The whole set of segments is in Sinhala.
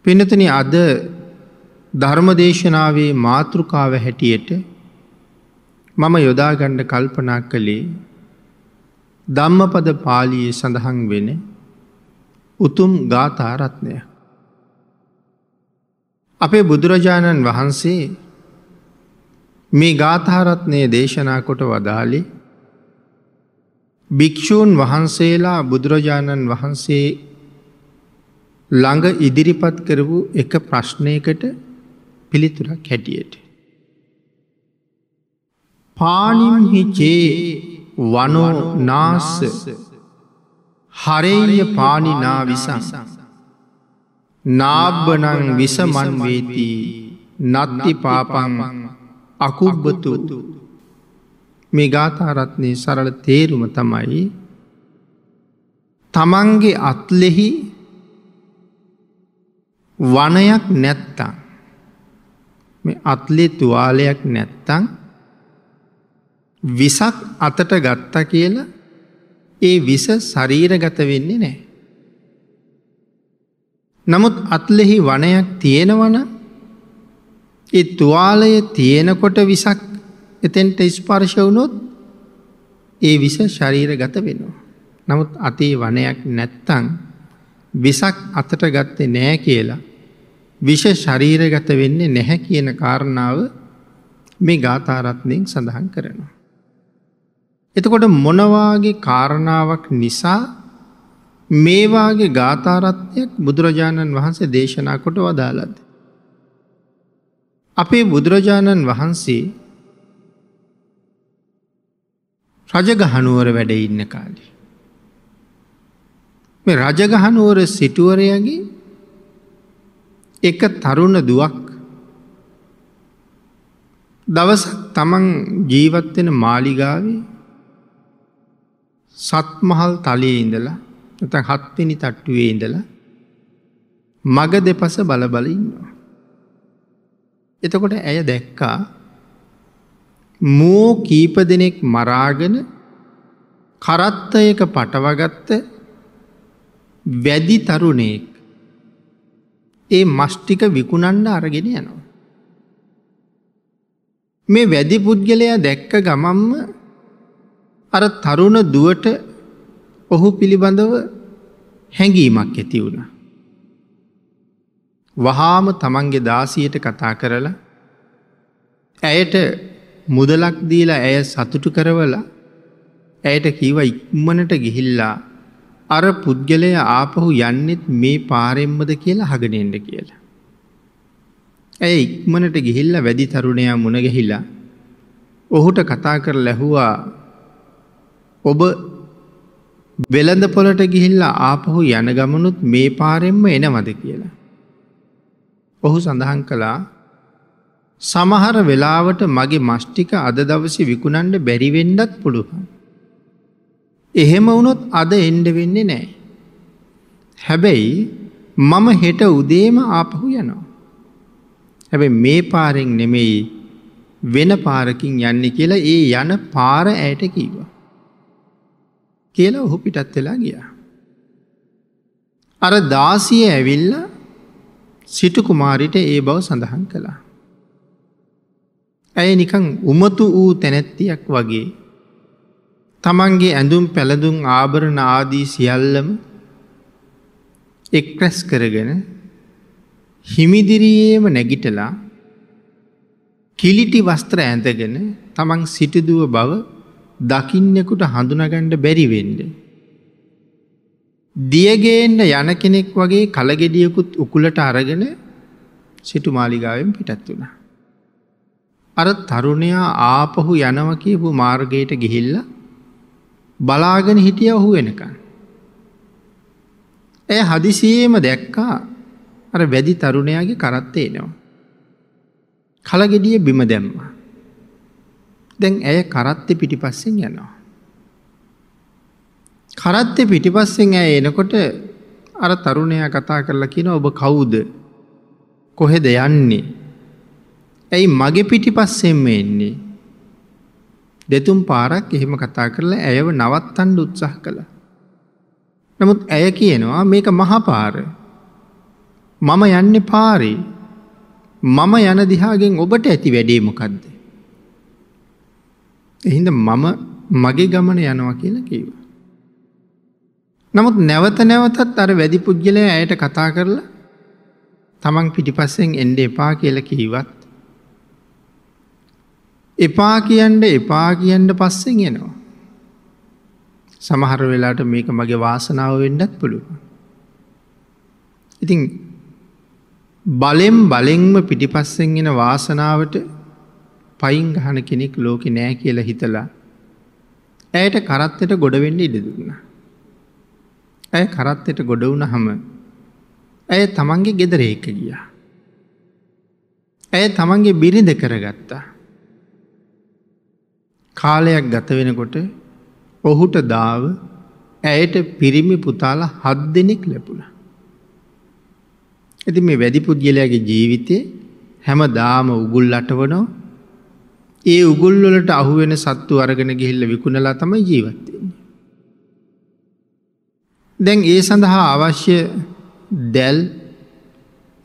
පින්නතුනි, අද ධර්ම දේශනාවේ මාතෘකාව හැටියට මම යොදා ගන්න කල්පනා කළේ ධම්මපද පාළියේ සඳහන් වෙන උතුම් ගාථා රත්නය. අපේ බුදුරජාණන් වහන්සේ මේ ගාථා රත්නය දේශනා කොට වදාළේ භික්ෂූන් වහන්සේලා බුදුරජාණන් වහන්සේ ළඟ ඉදිරිපත් කරපු එක ප්‍රශ්නයකට පිළිතුරක් හැටියට. පානිම්හි චේ වනෝ නාස්ස හරේය පානිනා විසං නාබ්බනං විසමන් වේති නත්ති පාපං අකුබ්බතු. මේ ගාථා රත්නයේ සරල තේරුම තමයි තමන්ගේ අත්ලෙහි වනයක් නැත්තම්, මේ අත්ලේ තුවාලයක් නැත්තම් විසක් අතට ගත්තා කියලා ඒ විස ශරීරගත වෙන්නේ නැහැ. නමුත් අත්ලෙහි වනයක් තියෙනවනම් ඒ තුවාලය තියෙනකොට විසක් එතෙන්ට ස්පර්ශ වුණොත් ඒ විස ශරීරගත වෙනවා. නමුත් අතේ වනයක් නැත්තම් විසක් අතට ගත්තේ නැහැ කියලා විෂ ශරීරගත වෙන්නේ නැහැ කියන කාරණාව මේ ගාථා රත්නයෙන් සඳහන් කරනවා. එතකොට මොන වාගේ කාරණාවක් නිසා මේ වාගේ ගාථා රත්නයක් බුදුරජාණන් වහන්සේ දේශනා කොට වදාළද? අපේ බුදුරජාණන් වහන්සේ රජගහනුවර වැඩ ඉන්න කාලේ මේ රජගහනුවර සිටුවරයාගේ එක තරුණ දුවක් දවසක් තමන් ජීවත් වෙන මාලිගාවේ සත්මහල් තලයේ ඉඳලා නැත්නම් හත්වෙනි තට්ටුවේ ඉඳලා මග දෙපස බල බල ඉන්නවා. එතකොට ඇය දැක්කා මෝ කීප දෙනෙක් මරාගෙන කරත්තයක පටවගත්ත වැදි තරුණයෙක් ඒ මස් ටික විකුණන්න අරගෙන යනවා. මේ වැදි පුද්ගලයා දැක්ක ගමන්ම අර තරුණ දුවට ඔහු පිළිබඳව හැඟීමක් ඇති වුණා. වහාම තමන්ගේ දාසියට කතා කරලා ඇයට මුදලක් දීලා ඇය සතුටු කරවලා ඇයට කිව්වා ඉක්මනට ගිහිල්ලා අර පුද්ගලයා ආපහු යන්නෙත් මේ පාරෙන්මද කියලා අහගෙන එන්න කියලා. ඇය ඉක්මනට ගිහිල්ලා වැඩි තරුණයා මුණ ගැහිලා ඔහුට කතා කරලා ඇහුවා, ඔබ වෙළඳ පොළට ගිහිල්ලා ආපහු යන ගමනුත් මේ පාරෙන්ම එනවද කියලා. ඔහු සඳහන් කළා, සමහර වෙලාවට මගේ මස් ටික අද දවසේ විකුණන්න බැරි වෙන්නත් පුළුවන්. එහෙම වුණොත් අද එන්න වෙන්නේ නැහැ. හැබැයි මම හෙට උදේම ආපහු යනවා. හැබැයි මේ පාරෙන් නෙමෙයි වෙන පාරකින් යන්නේ කියලා ඒ යන පාර ඇයට කිව්වා. කියලා ඔහු පිටත් වෙලා ගියා. අර දාසිය ඇවිල්ලා සිටු කුමාරිට ඒ බව සඳහන් කළා. ඇය නිකන් උමතු වූ තැනැත්තියක් වගේ තමන්ගේ ඇඳුම් පැළඳුම් ආභරණ ආදී සියල්ලම එක් රැස් කරගෙන හිමිදිරියේම නැගිටලා කිලිටි වස්ත්‍ර ඇඳගෙන තමන් සිටුදුව බව දකින්නෙකුට හඳුනාගන්න බැරි වෙන්න දියගේන්න යන කෙනෙක් වගේ කලගෙඩියකුත් උකුලට අරගෙන සිටු මාලිගාවෙන් පිටත් වුණා. අර තරුණයා ආපහු යනවා කියපු මාර්ගයට ගිහිල්ලා බලාගෙන හිටියා ඔහු වෙනකන්. ඇය හදිසියෙම දැක්කා අර වැඩි තරුණයාගේ කරත්තේ එනවා. කලගෙඩිය බිම දැම්මා. දැන් ඇය කරත්තේ පිටිපස්සෙන් යනවා. කරත්තේ පිටිපස්සෙන් ඇය එනකොට අර තරුණයා කතා කරලා කියනවා, ඔබ කවුද? කොහෙද යන්නේ? ඇයි මගේ පිටිපස්සෙන්ම එන්නේ? දෙතුන් පාරක් එහෙම කතා කරලා ඇයව නවත්තන්න උත්සාහ කළා. නමුත් ඇය කියනවා මේක මහපාර. මම යන්නේ පාරේ. මම යන දිහාගෙන් ඔබට ඇති වැඩේ මොකද්ද? ඒ හින්දා මම මගේ ගමන යනවා කියලා කිව්වා. නමුත් නැවත නැවතත් අර වැඩි පුද්ගලයා ඇයට කතා කරලා තමන් පිටිපස්සෙන් එන්න එපා කියලා කිව්වත් එපා කියන්න එපා කියන්න පස්සෙන් එනවා. සමහර වෙලාවට මේක මගේ වාසනාව වෙන්නත් පුළුවන්. ඉතින් බලෙන් බලෙන්ම පිටිපස්සෙන් එන වාසනාවට පයින් ගහන කෙනෙක් ලෝකේ නෑ කියලා හිතලා ඇයට කරත්තෙට ගොඩ වෙන්න ඉඩ දුන්නා. ඇය කරත්තෙට ගොඩ වුණාම ඇය තමන්ගේ ගෙදර එක්ක ගියා. ඇය තමන්ගේ බිරිඳ කරගත්තා. කාලයක් ගත වෙනකොට ඔහුට දාව ඇයට පිරිමි පුතාලා 7 දෙනෙක් ලැබුණා. ඉතින් මේ වැඩි පුද්ගලයාගේ ජීවිතේ හැමදාම උගුල් අටවනවා. ඒ උගුල් වලට අහු වෙන සත්තු අරගෙන ගිහිල්ලා විකුණලා තමයි ජීවත් වෙන්නේ. දැන් ඒ සඳහා අවශ්‍ය දැල්,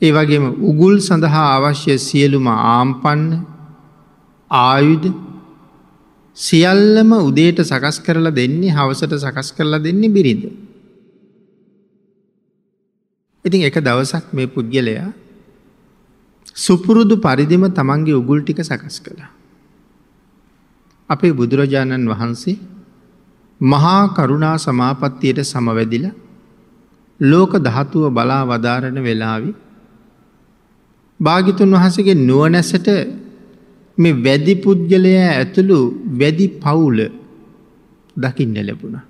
ඒ වගේම උගුල් සඳහා අවශ්‍ය සියලුම ආම්පන්න, ආයුධ සියල්ලම උදේට සකස් කරලා දෙන්නේ, හවසට සකස් කරලා දෙන්නේ බිරිඳ. ඉතින් එක දවසක් මේ පුද්ගලයා සුපුරුදු පරිදිම තමන්ගේ උගුල් ටික සකස් කළා. අපේ බුදුරජාණන් වහන්සේ මහා කරුණා සමාපත්තියට සමවැදිලා ලෝක ධාතුව බලා වදාරන වෙලාවේ භාග්‍යතුන් වහන්සේගේ නුවණැසට මේ වැඩි පුද්ගලයා ඇතුළු වැඩි පවුල දකින්න ලැබුණා.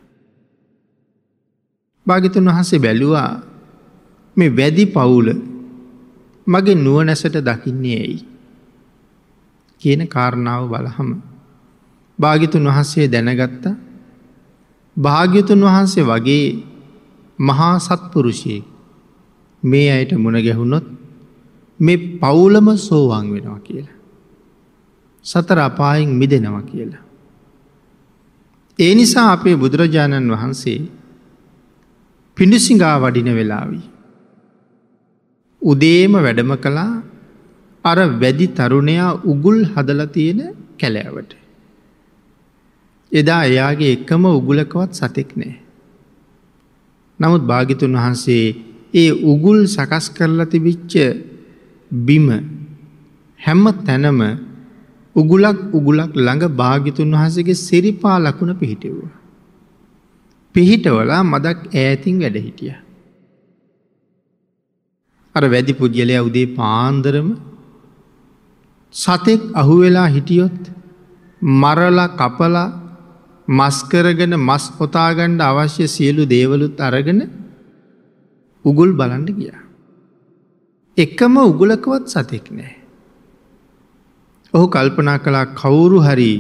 භාග්‍යතුන් වහන්සේ බැලුවා මේ වැඩි පවුල මගේ නුවණැසට දකින්නේ ඇයි කියන කාරණාව බලහම භාග්‍යතුන් වහන්සේ දැනගත්තා භාග්‍යතුන් වහන්සේ වගේ මහා සත්පුරුෂයෙක් මේ අයට මුණ ගැහුනොත් මේ පවුලම සෝවාන් වෙනවා කියලා. සතර අපායෙන් මිදෙනවා කියලා. ඒ නිසා අපේ බුදුරජාණන් වහන්සේ පිඬුසිඟා වඩින වෙලාවි උදේම වැඩම කළා අර වැඩි තරුණයා උගුල් හදලා තියෙන කැලෑවට. එදා එයාගේ එකම උගුලකවත් සතෙක් නෑ. නමුත් භාග්‍යතුන් වහන්සේ ඒ උගුල් සකස් කරලා තිබිච්ච බිම හැම තැනම උගුලක් උගුලක් ළඟ භාග්‍යතුන් වහන්සේගේ සිරිපා ලකුණ පිහිටෙව්වා. පිහිටවලා මදක් ඈතින් වැඩ හිටියා. අර වැඩි පුද්ගලයා උදේ පාන්දරම සතෙක් අහුවෙලා හිටියොත් මරලා කපලා මස් කරගෙන මස් ඔතා ගන්න අවශ්‍ය සියලු දේවලුත් අරගෙන උගුල් බලන්න ගියා. එකම උගුලකවත් සතෙක් නෑ. ඔහු කල්පනා කළා කවුරු හරි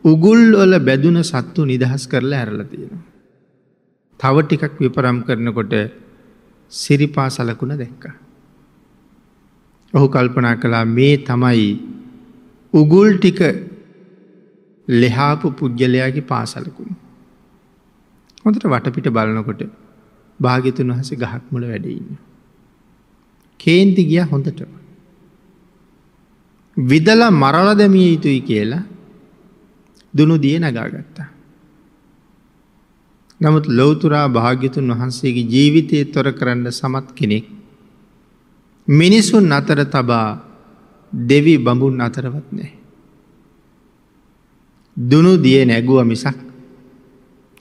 උගුල් වල බැදුන සත්තු නිදහස් කරලා ඇරලා තියෙනවා. තව ටිකක් විපරම් කරනකොට සිරිපා සලකුණ දැක්කා. ඔහු කල්පනා කළා මේ තමයි උගුල් ටික ලෙහාපු පුද්ගලයාගේ පාසලකුණ. හොඳට වටපිට බලනකොට භාග්‍යතුන් වහන්සේ ගහක් මුල වැඩ ඉන්නවා. කේන්ති ගියා හොඳට. විදලා මරලා දැමිය යුතුයි කියලා දුනු දිය නගාගත්තා. නමුත් ලෞතුරා භාග්‍යතුන් වහන්සේගේ ජීවිතය තොර කරන්න සමත් කෙනෙක් මිනිසුන් අතර තබා දෙවි බඹුන් අතරවත් නෑ. දුනු දිය නැගුව මිසක්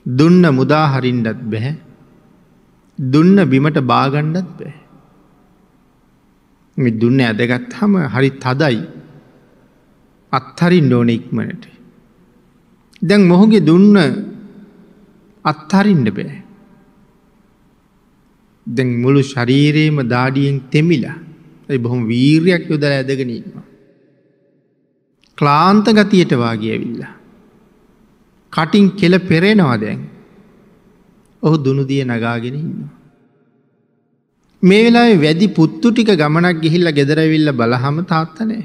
දුන්න මුදා හරින්නත් බැහැ. දුන්න බිමට බාගන්නත් බැහැ. මේ දුන්න ඇදගත්තාම හරි තදයි. අත්හරින්න ඕනේ ඉක්මනට. දැන් මොහුගේ දුන්න අත්හරින්න බෑ. දැන් මුළු ශරීරේම දාඩියෙන් තෙමිලා. ඒ බොහොම වීරියක් යොදලා ඇදගෙන ඉන්නවා. ක්ලාන්ත ගතියට වාගේ ඇවිල්ලා. කටින් කෙල පෙරෙනවා දැන්. ඔහු දුනු දිය නගාගෙන ඉන්නවා. මේ වෙලාවේ වැඩි පුත්තු ටික ගමනක් ගිහිල්ලා ගෙදර ඇවිල්ලා බලහම තාත්තා නෑ.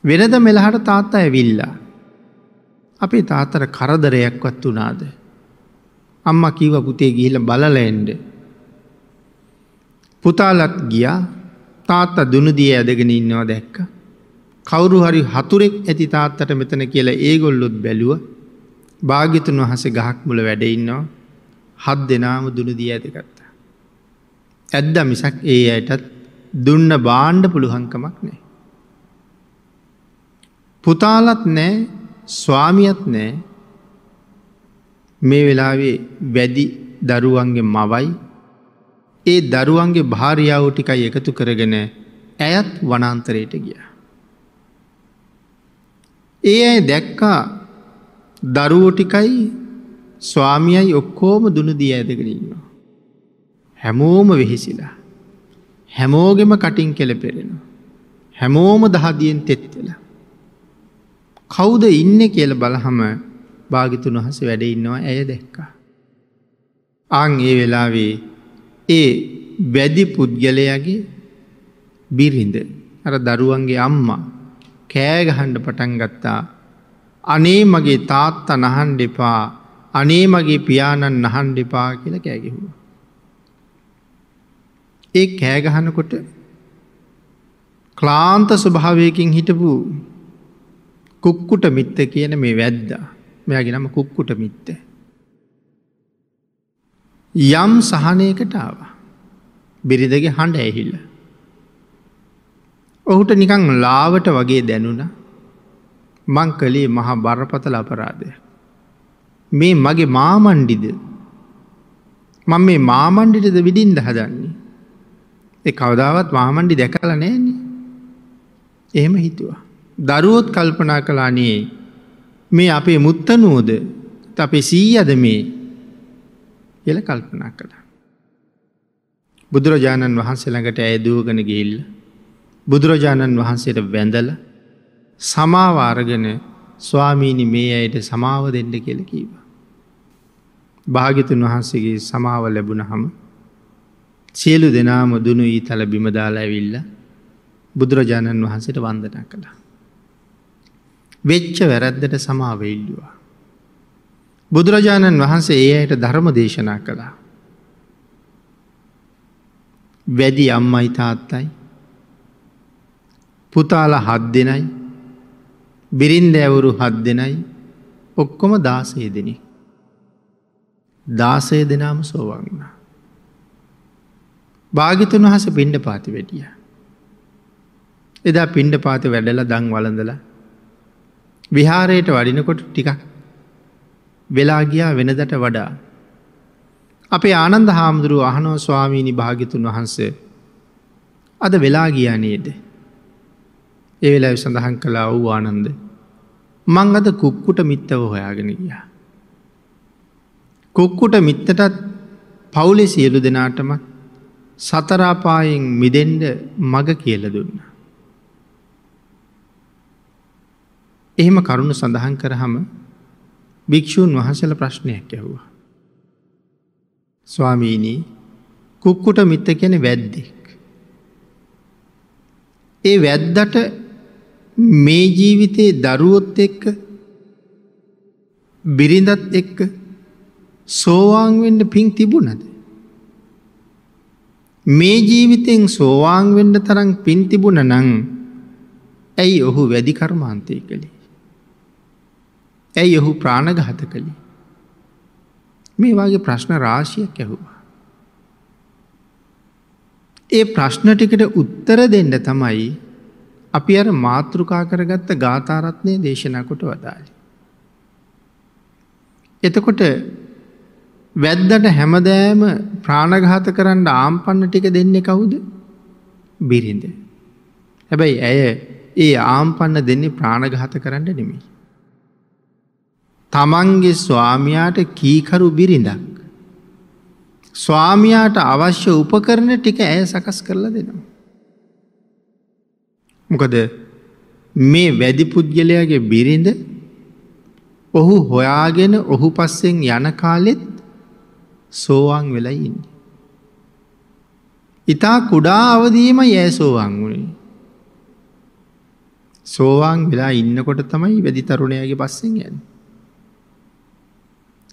වෙනද මෙලහට තාත්තා ඇවිල්ලා. අපේ තාත්තට කරදරයක්වත් වුණාද? අම්මා කිව්වා පුතේ ගිහිල්ලා බලලා එන්න. පුතාලත් ගියා. තාත්තා දුනුදිය ඇදගෙන ඉන්නවා දැක්කා. කවුරු හරි හතුරෙක් ඇති තාත්තට මෙතන කියලා ඒගොල්ලොත් බැලුවා. භාග්‍යතුන් වහන්සේ ගහක් මුල වැඩ ඉන්නවා. හත් දෙනාම දුනුදිය ඇදගත්තා. ඇද්දා මිසක් ඒ අයටත් දුන්න බාණ්ඩ පුළුවන්කමක් නෑ. පුතාලත් නෑ, ස්වාමියත් නෑ. මේ වෙලාවේ වැදි දරුවන්ගේ මවයි ඒ දරුවන්ගේ භාර්යාව ටිකයි එකතු කරගෙන ඇයත් වනාන්තරයට ගියා. ඒ අය දැක්කා දරුවෝ ටිකයි ස්වාමියයි ඔක්කොම දුනුදිය ඇදගෙන ඉන්නවා. හැමෝම වෙහෙසිලා. හැමෝගෙම කටින් කෙලපෙරෙනවා. හැමෝම දහදියෙන් තෙත් වෙලා. කවුද ඉන්නේ කියලා බලහම භාග්‍යතුන් වහන්සේ වැඩ ඉන්නවා ඇය දැක්කා. ආන් ඒ වෙලාවේ ඒ වැදි පුද්ගලයාගේ බිරිඳ අර දරුවන්ගේ අම්මා කෑ ගහන්න පටන් ගත්තා. අනේ මගේ තාත්තා නහන්න එපා, අනේ මගේ පියාණන් නහන්න එපා කියලා කෑ ගැහුවා. ඒ කෑ ගහනකොට ක්ලාන්ත ස්වභාවයකින් හිටපු කුක්කුට මිත්ත කියන මේ වැද්දා, මෙයාගේ නම කුක්කුට මිත්ත, යම් සහනයකට ආවා. බිරිඳගේ හඬ ඇහිලා ඔහුට නිකන් ලාවට වගේ දැනුණා. මං කළේ මහා බරපතල අපරාධයක්. මේ මගේ මාමණ්ඩිද? මං මේ මාමණ්ඩිටද විදින්න හදන්නේ? ඒ කවදාවත් මාමණ්ඩි දැකලා නෑනේ. එහෙම හිතුවා. දරුවොත් කල්පනා කළා නේ මේ අපේ මුත්තනුවද අපේ සීයාද මේ කියලා කල්පනා කළා. බුදුරජාණන් වහන්සේ ළඟට ඇය දුවගෙන ගිහිල්ලා බුදුරජාණන් වහන්සේට වැඳලා සමාව අරගෙන ස්වාමීනි මේ අයට සමාව දෙන්න කියලා කිව්වා. භාග්‍යතුන් වහන්සේගේ සමාව ලැබුණහම සියලු දෙනාම දුනු ඊතල බිම දාලා ඇවිල්ලා බුදුරජාණන් වහන්සේට වන්දනා කළා. වෙච්ච වැරද්දට සමාව ඉල්ලුවා. බුදුරජාණන් වහන්සේ ඒ අයට ධර්ම දේශනා කළා. වැදි අම්මයි තාත්තයි පුතාලා 7 දෙනයි බිරින්දෑවරු 7 දෙනයි ඔක්කොම 16 දෙනෙක්. 16 දෙනාම සෝවාන් වුණා. භාග්‍යතුන් වහන්සේ පිණ්ඩපාතේ වැඩියා. එදා පිණ්ඩපාතේ වැඩලා දන් වළඳලා විහාරයට වඩිනකොට ටිකක් වෙලා ගියා වෙනදට වඩා. අපේ ආනන්ද හාමුදුරුවෝ අහනවා, ස්වාමීනි භාග්‍යතුන් වහන්සේ අද වෙලා ගියා නේද? ඒ වෙලාවේ සඳහන් කළා, ඔව් ආනන්ද, මං අද කුක්කුට මිත්තව හොයාගෙන ගියා. කුක්කුට මිත්තටත් පවුලේ සියලු දෙනාටම සතර අපායෙන් මිදෙන්න මඟ කියලා දුන්නා. එහෙම කරුණ සඳහන් කරාම භික්ෂූන් වහන්සේලා ප්‍රශ්නයක් ඇහුවා. ස්වාමීනි, කුක්කුට මිත්ත කියන්නේ වැද්දෙක්. ඒ වැද්දට මේ ජීවිතේ දරුවොත් එක්ක බිරිඳත් එක්ක සෝවාන් වෙන්න පිං තිබුණද? මේ ජීවිතෙන් සෝවාන් වෙන්න තරම් පිං තිබුණා නම් ඇයි ඔහු වැඩි කර්මාන්තය කළේ? ඇයි ඔහු ප්‍රාණඝාත කළේ? මේ වගේ ප්‍රශ්න රාශියක් ඇහුවා. ඒ ප්‍රශ්න ටිකට උත්තර දෙන්න තමයි අපි අර මාතෘකා කරගත්ත ගාථා රත්නය දේශනා කොට වදාළේ. එතකොට වැද්දට හැමදෑම ප්‍රාණඝාත කරන්න ආම්පන්න ටික දෙන්නේ කවුද? බිරිඳ. හැබැයි ඇය ඒ ආම්පන්න දෙන්නේ ප්‍රාණඝාත කරන්න නෙමෙයි. තමන්ගේ ස්වාමියාට කීකරු බිරිඳක්. ස්වාමියාට අවශ්‍ය උපකරණ ටික ඇය සකස් කරලා දෙනවා. මොකද මේ වැදි පුද්ගලයාගේ බිරිඳ ඔහු හොයාගෙන ඔහු පස්සෙන් යන කාලෙත් සෝවාන් වෙලා ඉන්නේ. ඉතා කුඩා අවදියේමයි ඇය සෝවාන් වුණේ. සෝවාන් වෙලා ඉන්නකොට තමයි වැදි තරුණයාගේ පස්සෙන් යන්නේ.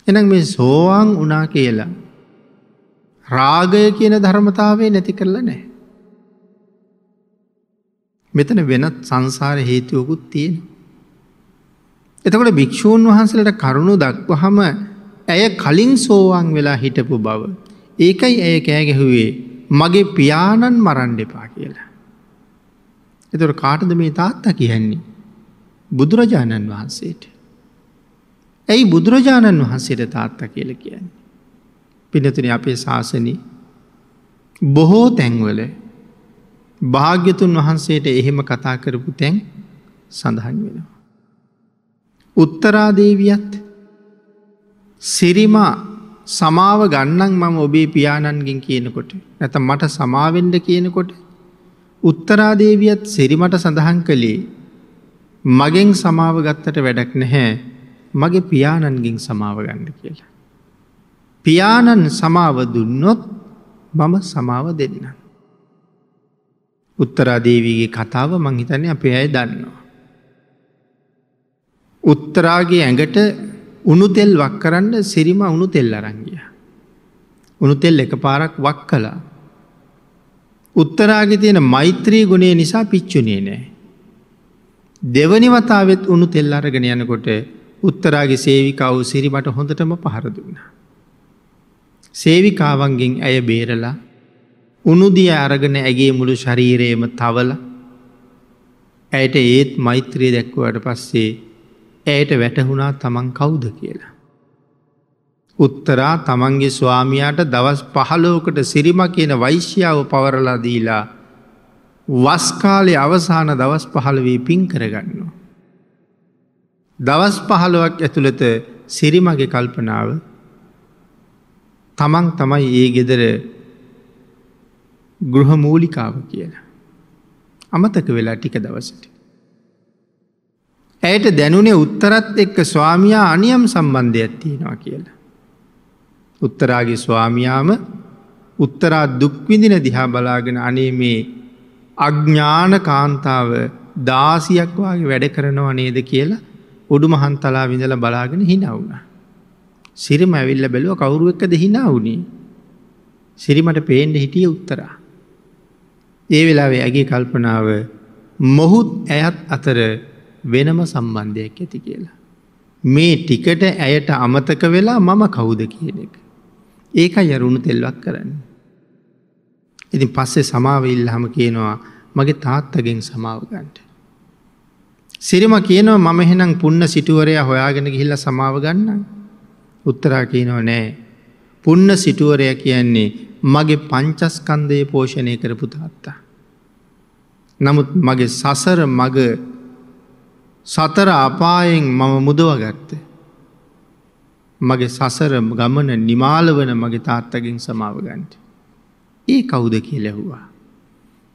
එහෙනම් මේ සෝවාන් වුණා කියලා රාගය කියන ධර්මතාවය නැති කරලා නැහැ. මෙතන වෙනත් සංසාර හේතුවකුත් තියෙනවා. එතකොට භික්ෂූන් වහන්සේලාට කරුණු දක්වහම ඇය කලින් සෝවාන් වෙලා හිටපු බව. ඒකයි ඇය කෑ ගැහුවේ මගේ පියාණන් මරන්න එපා කියලා. එතකොට කාටද මේ තාත්තා කියන්නේ? බුදුරජාණන් වහන්සේට. ඇයි බුදුරජාණන් වහන්සේට තාත්තා කියලා කියන්නේ? පින්නතුනි, අපේ ශාසනයේ බොහෝ තැන්වල භාග්‍යතුන් වහන්සේට එහෙම කතා කරපු තැන් සඳහන් වෙනවා. උත්තරා දේවියත් සිරිමා සමාව ගන්නම් මම ඔබේ පියාණන්ගෙන් කියනකොට, නැත්නම් මට සමාවෙන්න කියනකොට උත්තරා දේවියත් සිරිමට සඳහන් කළේ මගෙන් සමාව ගත්තට වැඩක් නැහැ, මගේ පියාණන්ගෙන් සමාව ගන්න කියලා. පියාණන් සමාව දුන්නොත් මම සමාව දෙන්නම්. උත්තරා දේවියගේ කතාව මං හිතන්නේ අපේ අය දන්නවා. උත්තරාගේ ඇඟට උණු තෙල් වක් කරන්න සිරිමා උණු තෙල් අරන් ගියා. උණු තෙල් එකපාරක් වක් කළා. උත්තරාගේ තියෙන මෛත්‍රී ගුණය නිසා පිච්චුනේ නෑ. දෙවනි වතාවෙත් උණු තෙල් අරගෙන යනකොට උත්තරාගේ සේවිකාව සිරිමට හොඳටම පහර දුන්නා. සේවිකාවන්ගෙන් ඇය බේරලා උණු දිය අරගෙන ඇගේ මුළු ශරීරයම තවලා ඇයට ඒත් මෛත්‍රිය දැක්වුවාට පස්සේ ඇයට වැටහුණා තමන් කවුද කියලා. උත්තරා තමන්ගේ ස්වාමියාට දවස් 15කට සිරිමා කියන වෛශ්‍යාව පවරලා දීලා වස් කාලේ අවසාන දවස් 15 පින් කරගන්නවා. දවස් 15ක් ඇතුළත සිරිමගේ කල්පනාව තමන් තමයි ඒ ගෙදර ගෘහ මූලිකාව කියලා. අමතක වෙලා ටික දවසට. ඇයට දැනුනේ උත්තරත් එක්ක ස්වාමියා අනියම් සම්බන්ධයක් තියෙනවා කියලා. උත්තරාගේ ස්වාමියාම උත්තරා දුක් විඳින දිහා බලාගෙන අනේ මේ අඥාන කාන්තාව 16ක් වාගේ වැඩ කරනව නේද කියලා උඩුමහන්තලාව ඉඳලා බලාගෙන hina වුණා. සිරිම ඇවිල්ලා බැලුවා කවුරු එක්කද hina වුනේ? සිරිමට පේන්න හිටියේ උත්තරා. ඒ වෙලාවේ ඇගේ කල්පනාව මොහුත් ඇයත් අතර වෙනම සම්බන්ධයක් ඇති කියලා. මේ ටිකට ඇයට අමතක වෙලා මම කවුද කියන එක. ඒකයි අර උණු තෙල්වක් කරන්නේ. ඉතින් පස්සේ සමාව ඉල්ලහම කියනවා මගේ තාත්තගෙන් සමාව ගන්න. සිරිම කියනවා මම එහෙනම් පුන්න සිටුවරයා හොයාගෙන ගිහිල්ලා සමාව ගන්නම්. උත්තරා කියනවා නෑ. පුන්න සිටුවරයා කියන්නේ මගේ පංචස්කන්ධය පෝෂණය කරපු තාත්තා. නමුත් මගේ සසර මග සතර අපායෙන් මම මුදවගත්තේ. මගේ සසර ගමන නිමාල වන මගේ තාත්තගෙන් සමාව ගන්න. ඒ කවුද කියලා ඇහුවා.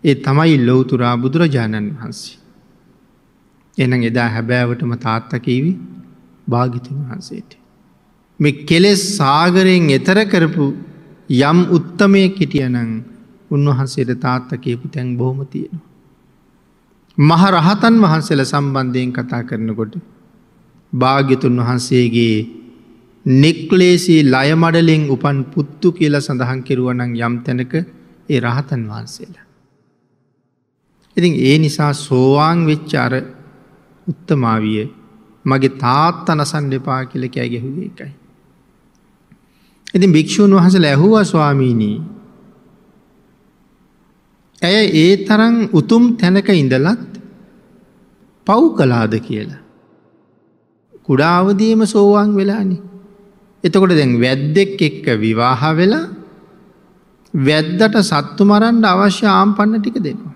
ඒ තමයි ලෞතුරා බුදුරජාණන් වහන්සේ. එහෙනම් එදා හැබෑවටම තාත්තා කිව්වේ භාග්‍යතුන් වහන්සේට. මේ කෙලෙස් සාගරයෙන් එතර කරපු යම් උත්තමයෙක් හිටියානම් උන්වහන්සේට තාත්තා කියපු තැන් බොහොම තියෙනවා. මහ රහතන් වහන්සේලා සම්බන්ධයෙන් කතා කරනකොට භාග්‍යතුන් වහන්සේගේ නික්ලේශී ලය මඩලෙන් උපන් පුත්තු කියලා සඳහන් කෙරුවා නම් යම් තැනක ඒ රහතන් වහන්සේලා. ඉතින් ඒ නිසා සෝවාන් වෙච්ච අර උත්තමාවිය මගේ තාත්තා නසන්න එපා කියලා කෑ ගැහුවේ ඒකයි. ඉතින් භික්ෂූන් වහන්සේලා ඇහුවා ස්වාමීනි, ඇය ඒ තරම් උතුම් තැනක ඉඳලත් පව් කළාද කියලා. කුඩා අවදියේම සෝවාන් වෙලානේ. එතකොට දැන් වැද්දෙක් එක්ක විවාහ වෙලා වැද්දට සත්තු මරන්න අවශ්‍ය ආම්පන්න ටික දෙනවා.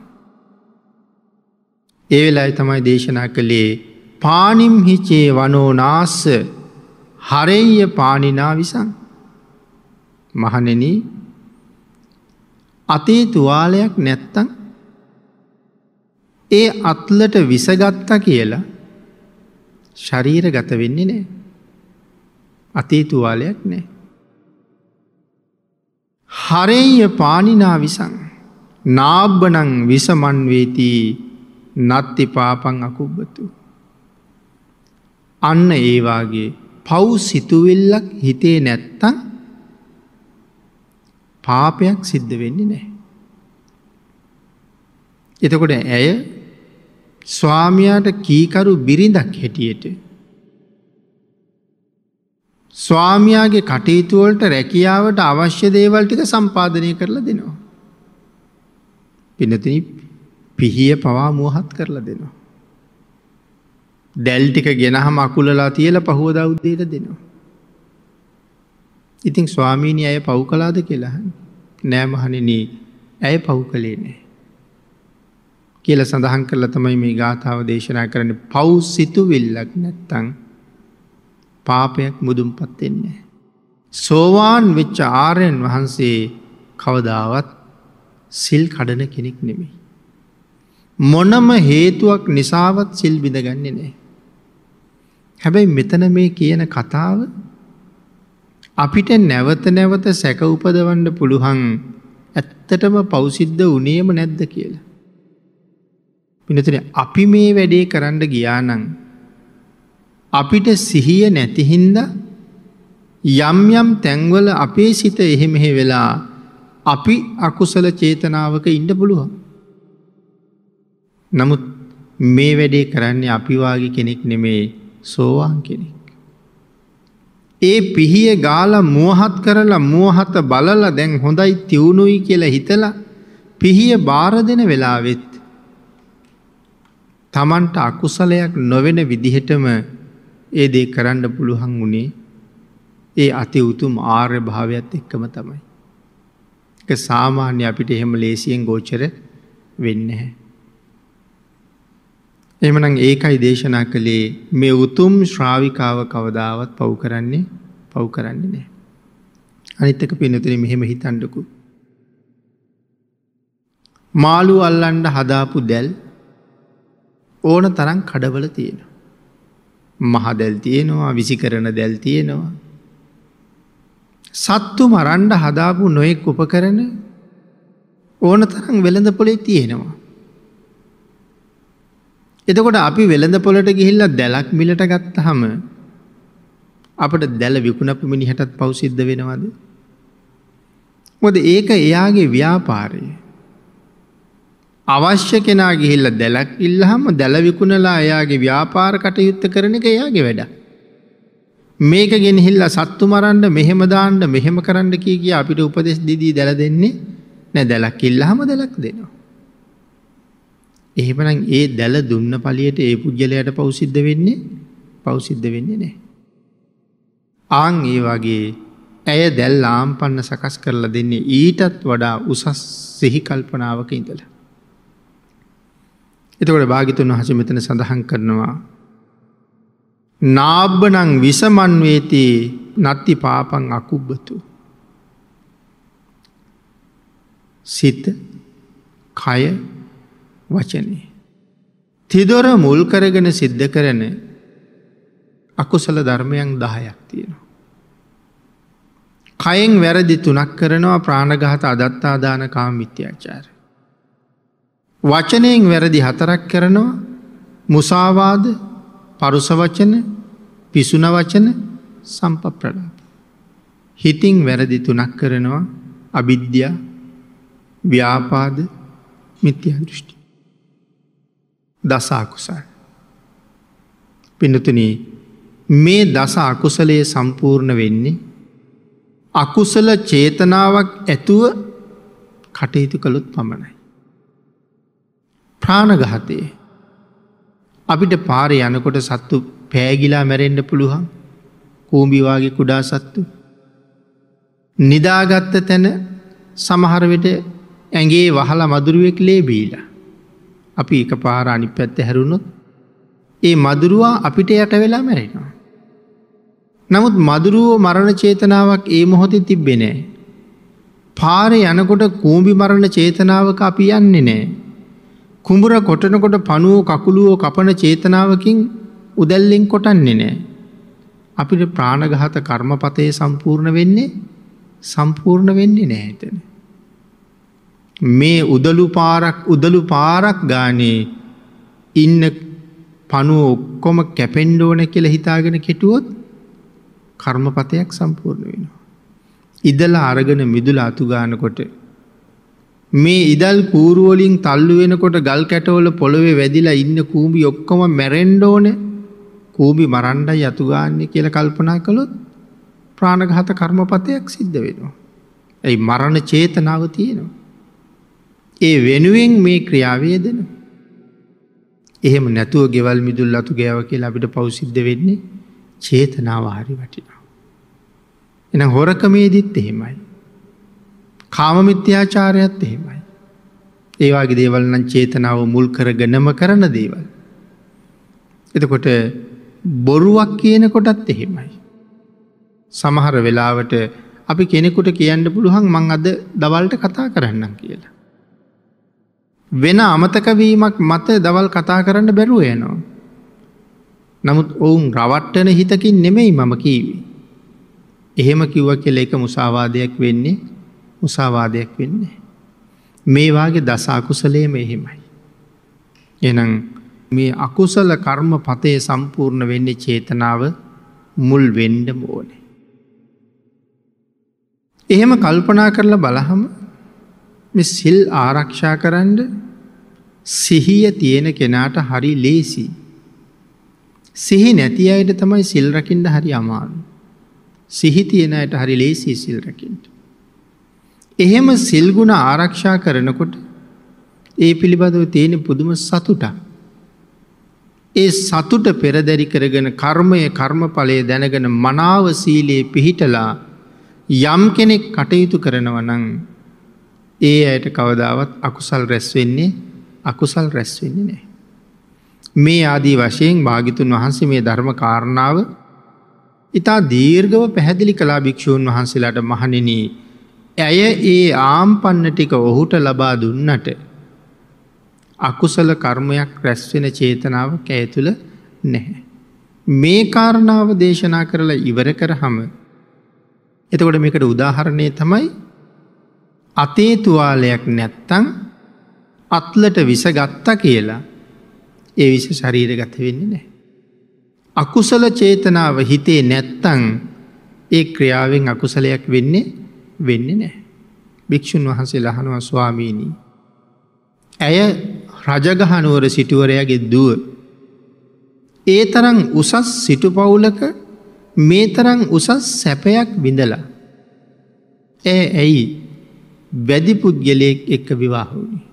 ඒ වෙලාවේ තමයි දේශනා කළේ පානිම් හිචේ වනෝ නාස්ස හරෙය්‍ය පානිනා විසං. මහණෙනි, අතේ තුවාලයක් නැත්තම් ඒ අත්ලට විසගත්තා කියලා ශරීරගත වෙන්නේ නෑ. අතේ තුවාලයක් නෑ. හරෙය්‍ය පානිනා විසං නාබ්බනං විසමන් වේති නත්ති පාපං අකුබ්බතු. අන්න ඒ වාගේ පව් සිතුවිල්ලක් හිතේ නැත්තම් පාපයක් සිද්ධ වෙන්නේ නැහැ. එතකොට ඇය ස්වාමියාට කීකරු බිරිඳක් හැටියට ස්වාමියාගේ කටයුතු වලට රැකියාවට අවශ්‍ය දේවල් ටික සම්පාදනය කරලා දෙනවා. පින්නතිනි පිහිය පවා මුවහත් කරලා දෙනවා. දැල් ටික ගෙනහම අකුලලා තියලා පහුවදා උදේට දෙනවා. ඉතින් ස්වාමීනි ඇය පව් කළාද කියලා අහන්නේ. නෑ මහණෙනි, ඇය පව් කළේ නෑ කියලා සඳහන් කරලා තමයි මේ ගාථාව දේශනා කරන්නේ. පව් සිතුවිල්ලක් නැත්තම් පාපයක් මුදුන්පත් වෙන්නේ නෑ. සෝවාන් වෙච්ච ආර්යයන් වහන්සේ කවදාවත් සිල් කඩන කෙනෙක් නෙමෙයි. මොනම හේතුවක් නිසාවත් සිල් බිඳගන්නේ නෑ. හැබැයි මෙතන මේ කියන කතාව අපිට නැවත නැවත සැක උපදවන්න පුළුවන් ඇත්තටම පව් සිද්ධ වුණේම නැද්ද කියලා. පින්නතුනේ අපි මේ වැඩේ කරන්න ගියා නම් අපිට සිහිය නැති හින්දා යම් යම් තැන්වල අපේ සිත එහෙ මෙහෙ වෙලා අපි අකුසල චේතනාවක ඉන්න පුළුවන්. නමුත් මේ වැඩේ කරන්නේ අපි වාගේ කෙනෙක් නෙමේ, සෝවාන් කෙනෙක්. ඒ පිහිය ගාලා මුවහත් කරලා මුවහත බලලා දැන් හොඳයි තියුණුයි කියලා හිතලා පිහිය බාර දෙන වෙලාවෙත් තමන්ට අකුසලයක් නොවන විදිහටම ඒ දේ කරන්න පුළුවන් වුණේ ඒ අති උතුම් ආර්ය භාවයත් එක්කම තමයි. ඒක සාමාන්‍ය අපිට එහෙම ලේසියෙන් ගෝචර වෙන්නේ නැහැ. එහෙමනම් ඒකයි දේශනා කළේ මේ උතුම් ශ්‍රාවිකාව කවදාවත් පව් කරන්නේ නැහැ. අනිත් එක පින්නතුනේ මෙහෙම හිතන්නකෝ. මාළු අල්ලන්න හදාපු දැල් ඕන තරම් කඩවල තියෙනවා. මහ දැල් තියෙනවා, විසිකරන දැල් තියෙනවා. සත්තු මරන්න හදාපු නොයෙක් උපකරණ ඕන තරම් වෙළඳ පොලේ තියෙනවා. එතකොට අපි වෙළඳ පොලට ගිහිල්ලා දැලක් මිලට ගත්තාම අපිට දැල විකුණපු මිනිහටත් පව් සිද්ධ වෙනවද? මොකද ඒක එයාගේ ව්‍යාපාරය. අවශ්‍ය කෙනා ගිහිල්ලා දැලක් ඉල්ලහම දැල විකුණලා එයාගේ ව්‍යාපාර කටයුත්ත කරන එක එයාගේ වැඩ. මේක ගෙනහිල්ලා සත්තු මරන්න, මෙහෙම දාන්න, මෙහෙම කරන්න කිය කිය අපිට උපදෙස් දීදී දැල දෙන්නේ නෑ. දැලක් ඉල්ලහම දැලක් දෙනවා. එහෙමනම් ඒ දැල දුන්න පළියට ඒ පුජ්‍යලයට පව් සිද්ධ වෙන්නේ නෑ. ආන් ඒ වගේ ඇය දැල් ආම්පන්න සකස් කරලා දෙන්නේ ඊටත් වඩා උසස් සිහි කල්පනාවක ඉඳලා. එතකොට භාග්‍යතුන් වහන්සේ මෙතන සඳහන් කරනවා නාබ්බනං විසමන් වේති නත්ති පාපං අකුබ්බතු. සිත, කය, වචනේ තිදොර මුල් කරගෙන සිද්ධ කරන අකුසල ධර්මයන් 10ක් තියෙනවා. කයෙන් වැරදි 3ක් කරනවා, ප්‍රාණඝාත, අදත්තාදාන, කාම මිත්‍යාචාර. වචනයෙන් වැරදි 4ක් කරනවා, මුසාවාද, පරුස වචන, පිසුන වචන, සම්පප්‍රලාප. හිතින් වැරදි 3ක් කරනවා, අවිද්‍යා, ව්‍යාපාද, මිත්‍යා දෘෂ්ටි. දස අකුසල. පින්නතුනි මේ දස අකුසලයේ සම්පූර්ණ වෙන්නේ අකුසල චේතනාවක් ඇතුව කටයුතු කළොත් පමණයි. ප්‍රාණඝාතය අපිට පාරේ යනකොට සත්තු පෑගිලා මැරෙන්න පුළුවන්. කූඹි වාගේ කුඩා සත්තු. නිදාගත්ත තැන සමහර විට ඇඟේ වහලා මදුරුවෙක් ලේ බීලා. අපි එකපාර අනිත් පැත්ත හැරුණොත් ඒ මදුරුවා අපිට යට වෙලා මැරෙනවා. නමුත් මදුරුවෝ මරණ චේතනාවක් ඒ මොහොතේ තිබ්බේ නෑ. පාරේ යනකොට කූඹි මරණ චේතනාවක අපි යන්නේ නෑ. කුඹුර කොටනකොට පණුවෝ කකුලුවෝ කපන චේතනාවකින් උදැල්ලෙන් කොටන්නේ නෑ. අපිට ප්‍රාණඝාත කර්මපතේ සම්පූර්ණ වෙන්නේ නෑ එතන. මේ උදළු පාරක් ගානේ ඉන්න පණුව ඔක්කොම කැපෙන්න ඕන කියලා හිතාගෙන කෙටුවොත් කර්මපතයක් සම්පූර්ණ වෙනවා. ඉදලා අරගෙන මිදුල අතු ගන්නකොට මේ ඉදල් කූරු වලින් තල්ලු වෙනකොට ගල් කැටවල පොළවේ වැදිලා ඉන්න කූඹි ඔක්කොම මැරෙන්න ඕනේ. කූඹි මරණ්ඩයි අතු ගාන්නේ කියලා කල්පනා කළොත් ප්‍රාණඝාත කර්මපතයක් සිද්ධ වෙනවා. ඒ මරණ චේතනාව තියෙනවා. ඒ වෙනුවෙන් මේ ක්‍රියාව යෙදෙනවා. එහෙම නැතුව ගෙවල් මිදුල් අතු ගෑව කියලා අපිට පව් සිද්ධ වෙන්නේ චේතනාව හරි වටිනවා. එහෙනම් හොරකමේදීත් එහෙමයි. කාම මිත්‍යාචාරයත් එහෙමයි. ඒ වගේ දේවල් නම් චේතනාව මුල් කරගෙනම කරන දේවල්. එතකොට බොරුවක් කියන කොටත් එහෙමයි. සමහර වෙලාවට අපි කෙනෙකුට කියන්න පුළුවන් මං අද දවල්ට කතා කරන්නම් කියලා. වෙන අමතක වීමක් මත දවල් කතා කරන්න බැරුව යනවා. නමුත් ඔවුන් රවට්ටන හිතකින් නෙමෙයි මම කීවේ. එහෙම කිව්වා කියලා ඒක මුසාවාදයක් වෙන්නේ මුසාවාදයක් වෙන්නේ. මේ වාගේ දස අකුසලයේම එහෙමයි. එහෙනම් මේ අකුසල කර්මපතේ සම්පූර්ණ වෙන්නේ චේතනාව මුල් වෙන්න ඕනේ. එහෙම කල්පනා කරලා බලහම මේ සිල් ආරක්ෂා කරන්න සිහිය තියෙන කෙනාට හරි ලේසි. සිහි නැති අයට තමයි සිල් රකින්න හරි අමාරු. සිහි තියෙන අයට හරි ලේසි සිල් රකින්න. එහෙම සිල් ගුණ ආරක්ෂා කරනකොට ඒ පිළිබඳව තියෙන පුදුම සතුටක්. ඒ සතුට පෙරදරි කරගෙන කර්මය කර්මඵලය දැනගෙන මනාව සීලේ පිහිටලා යම් කෙනෙක් කටයුතු කරනවා නම් ඒ අයට කවදාවත් අකුසල් රැස් වෙන්නේ අකුසල් රැස් වෙන්නේ නැහැ. මේ ආදී වශයෙන් භාග්‍යතුන් වහන්සේ මේ ධර්ම කාරණාව ඉතා දීර්ඝව පැහැදිලි කළා භික්ෂූන් වහන්සේලාට. මහණෙනි, ඇය ඒ ආම්පන්න ටික ඔහුට ලබා දුන්නට අකුසල කර්මයක් රැස් වෙන චේතනාවක් ඇය තුළ නැහැ. මේ කාරණාව දේශනා කරලා ඉවර කරාම එතකොට මේකට උදාහරණය තමයි අතේ තුවාලයක් නැත්තම් අත්ලට විස ගත්තා කියලා ඒ විස ශරීරගත වෙන්නේ නැහැ. අකුසල චේතනාව හිතේ නැත්තම් ඒ ක්‍රියාවෙන් අකුසලයක් වෙන්නේ වෙන්නේ නැහැ. භික්ෂුන් වහන්සේලා අහනවා, ස්වාමීනි, ඇය රජගහ නුවර සිටුවරයාගේ දුව. ඒ තරම් උසස් සිටු පවුලක මේ තරම් උසස් සැපයක් විඳලා ඇය ඇයි වැදි පුද්ගලයෙක් එක්ක විවාහ වුණේ?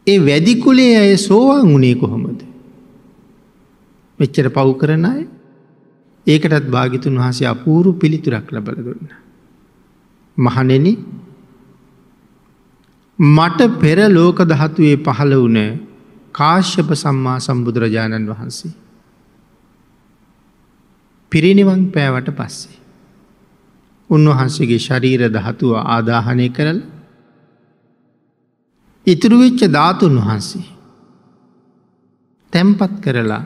ඒ වැදි කුලයේ අය සෝවාන් වුණේ කොහොමද? මෙච්චර පව් කරන අය. ඒකටත් භාග්‍යතුන් වහන්සේ අපූර්ව පිළිතුරක් ලබලා දුන්නා. මහණෙනි, මට පෙර ලෝක ධාතුවේ පහළ වුණ කාශ්‍යප සම්මා සම්බුදුරජාණන් වහන්සේ පිරිනිවන් පෑවට පස්සේ උන්වහන්සේගේ ශරීර ධාතුව ආදාහනය කරලා ඉතුරු වෙච්ච ධාතුන් වහන්සේ තැන්පත් කරලා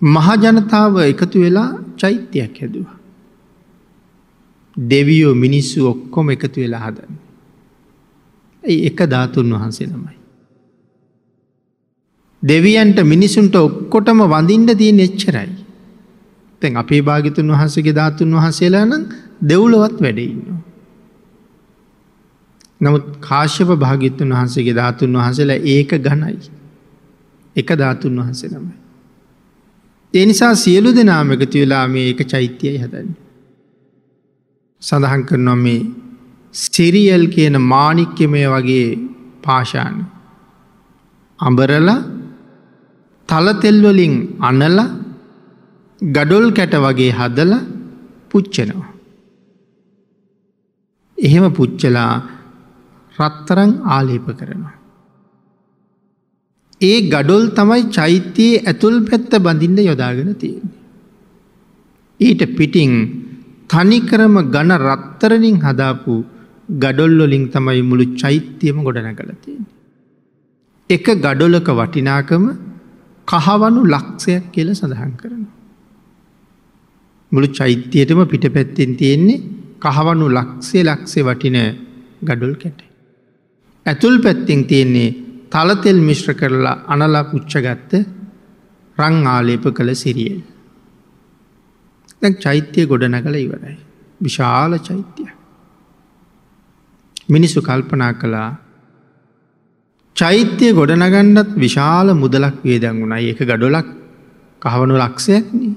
මහ ජනතාව එකතු වෙලා චෛත්‍යයක් හැදුවා. දෙවියෝ මිනිස්සු ඔක්කොම එකතු වෙලා හදන්නේ. ඒ එක ධාතුන් වහන්සේ නමයි. දෙවියන්ට මිනිසුන්ට ඔක්කොටම වඳින්න තියෙන එච්චරයි. දැන් අපේ භාග්‍යතුන් වහන්සේගේ ධාතුන් වහන්සේලා නම් දෙව්ලොවත් වැඩ ඉන්නවා. නමුත් කාශ්‍යප භාග්‍යතුන් වහන්සේගේ ධාතුන් වහන්සේලා ඒක ඝනයි. එක ධාතුන් වහන්සේ නමයි. ඒ නිසා සියලු දෙනාම එකතු වෙලා මේ එක චෛත්‍යයයි හදන්නේ. සඳහන් කරනවා මේ සිරියල් කියන මාණික්‍යමය වගේ පාෂාණ අඹරලා තල තෙල් වලින් අනලා ගඩොල් කැට වගේ හදලා පුච්චනවා. එහෙම පුච්චලා රත්තරන් ආලේප කරනවා. ඒ ගඩොල් තමයි චෛත්‍යයේ ඇතුල් පැත්ත බඳින්න යොදාගෙන තියෙන්නේ. ඊට පිටින් තනිකරම ඝන රත්තරනින් හදාපු ගඩොල් වලින් තමයි මුළු චෛත්‍යයම ගොඩනගලා තියෙන්නේ. එක ගඩොලක වටිනාකම කහවණු ලක්ෂයක් කියලා සඳහන් කරනවා. මුළු චෛත්‍යයටම පිටපැත්තෙන් තියෙන්නේ කහවණු ලක්ෂය ලක්ෂය වටින ගඩොල් කැට. ඇතුල් පැත්තෙන් තියෙන්නේ තල තෙල් මිශ්‍ර කරලා අනලා පුච්චගත්ත රන් ආලේප කළ සිරියල්. දැන් චෛත්‍ය ගොඩනගලා ඉවරයි. විශාල චෛත්‍යයක්. මිනිස්සු කල්පනා කළා චෛත්‍ය ගොඩනගන්නත් විශාල මුදලක් වියදම් වුණා. ඒක ගඩොලක් කහවණු ලක්ෂයක් නේ.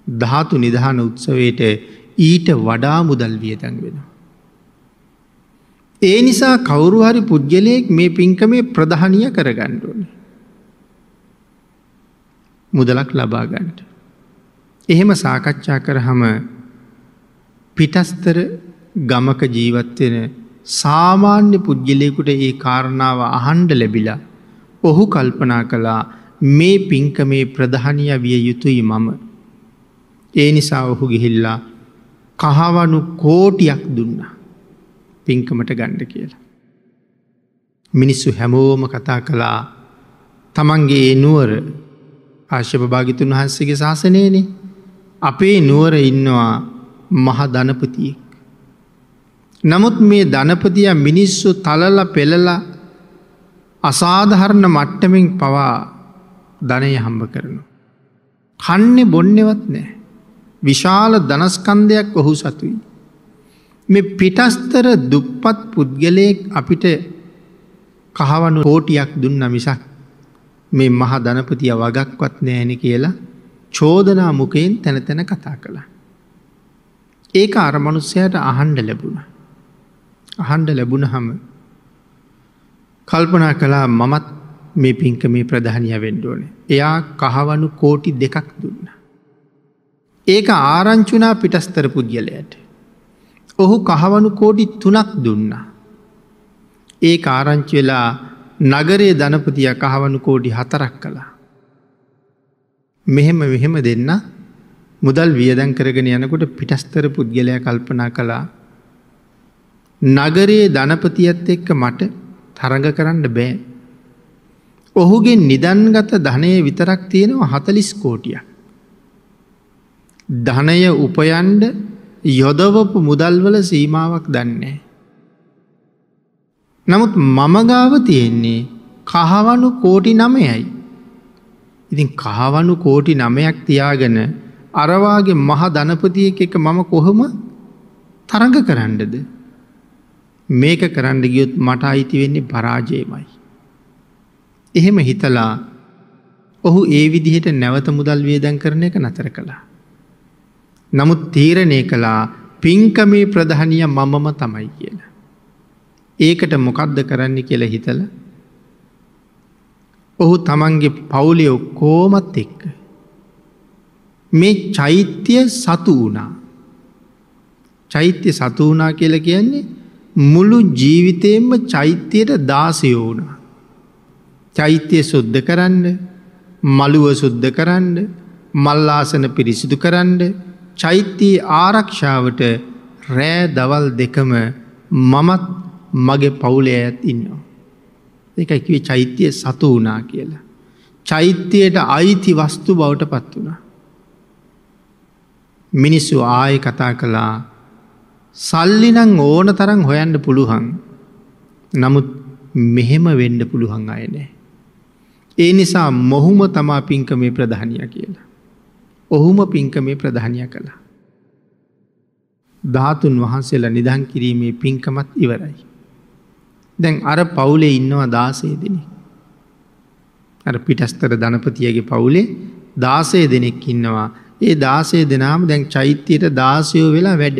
ධාතු නිධාන උත්සවයට ඊට වඩා මුදල් වියදම් වෙනවා. ඒ නිසා කවුරු හරි පුද්ගලයෙක් මේ පින්කමේ ප්‍රධානිය කරගන්න ඕනේ. මුදලක් ලබා ගන්නට. එහෙම සාකච්ඡා කරාම පිටස්තර ගමක ජීවත් වෙන සාමාන්‍ය පුද්ගලයෙකුට ඒ කාරණාව අහන්න ලැබිලා ඔහු කල්පනා කළා මේ පින්කමේ ප්‍රධානිය විය යුතුයි මම. ඒ නිසා ඔහු ගිහිල්ලා කහවණු කෝටියක් දුන්නා පින්කමට ගන්න කියලා. මිනිස්සු හැමෝම කතා කළා තමන්ගේ ඒ නුවර කාශ්‍යප භාග්‍යතුන් වහන්සේගේ ශාසනයනේ අපේ නුවර ඉන්නවා මහ ධනපතියෙක්. නමුත් මේ ධනපතියා මිනිස්සු තලලා පෙළලා අසාධාරණ මට්ටමින් පවා ධනය හම්බ කරනවා. කන්නේ බොන්නේවත් නෑ. විශාල ධනස්කන්ධයක් ඔහු සතුයි. මේ පිටස්තර දුප්පත් පුද්ගලයෙක් අපිට කහවණු කෝටියක් දුන්නා මිසක් මේ මහ ධනපතියා වගක්වත් නෑනේ කියලා චෝදනා මුඛයෙන් තැන තැන කතා කළා. ඒක අර මනුස්සයාට අහන්න ලැබුණා. අහන්න ලැබුණහම කල්පනා කළා මමත් මේ පින්කමේ ප්‍රධානියා වෙන්න ඕනේ. එයා කහවණු කෝටි 2ක් දුන්නා. ඒක ආරංචි වුණා පිටස්තර පුද්ගලයාට. ඔහු කහවණු කෝටි 3ක් දුන්නා. ඒක ආරංචි වෙලා නගරයේ ධනපතියා කහවණු කෝටි 4ක් කළා. මෙහෙම මෙහෙම දෙන්න මුදල් වියදම් කරගෙන යනකොට පිටස්තර පුද්ගලයා කල්පනා කළා නගරයේ ධනපතියත් එක්ක මට තරඟ කරන්න බෑ. ඔහුගේ නිදන්ගත ධනය විතරක් තියෙනවා 40 කෝටියක්. ධනය උපයන්න යොදවපු මුදල් වල සීමාවක් දන්නේ. නමුත් මම ගාව තියෙන්නේ කහවණු කෝටි 9යි. ඉතින් කහවණු කෝටි 9ක් තියාගෙන අර වාගේ මහ ධනපතියෙක් එක්ක මම කොහොම තරඟ කරන්නද? මේක කරන්න ගියොත් මට අයිති වෙන්නේ පරාජයමයි. එහෙම හිතලා ඔහු ඒ විදිහට නැවත මුදල් වියදම් කරන එක නතර කළා. නමුත් තීරණය කළා පින්කමේ ප්‍රධානිය මමම තමයි කියලා. ඒකට මොකද්ද කරන්න කියලා හිතලා ඔහු තමන්ගේ පවුලේ ඔක්කොමත් එක්ක මේ චෛත්‍ය සතු වුණා. චෛත්‍ය සතු වුණා කියලා කියන්නේ මුළු ජීවිතේම චෛත්‍යයට දාසයෝ වුණා. චෛත්‍ය සුද්ධ කරන්න, මළුව සුද්ධ කරන්න, මල් ආසන පිරිසිදු කරන්න, චෛත්‍ය ආරක්ෂාවට රෑ දවල් දෙකම මමත් මගේ පවුලේ අයත් ඉන්නවා. ඒකයි කිව්වේ චෛත්‍ය සතු වුණා කියලා. චෛත්‍යයට අයිති වස්තු බවට පත් වුණා. මිනිස්සු ආයෙ කතා කළා සල්ලි නම් ඕන තරම් හොයන්න පුළුවන්. නමුත් මෙහෙම වෙන්න පුළුවන් අය නෑ. ඒ නිසා මොහුම තමා පින්කමේ ප්‍රධානියා කියලා. ඔහුම පින්කමේ ප්‍රධානියා කළා. ධාතුන් වහන්සේලා නිදන් කිරීමේ පින්කමත් ඉවරයි. දැන් අර පවුලේ ඉන්නවා 16 දෙනෙක්. අර පිටස්තර ධනපතියගේ පවුලේ 16 දෙනෙක් ඉන්නවා. ඒ 16 දෙනාම දැන් චෛත්‍යයට දාසයෝ වෙලා වැඩ.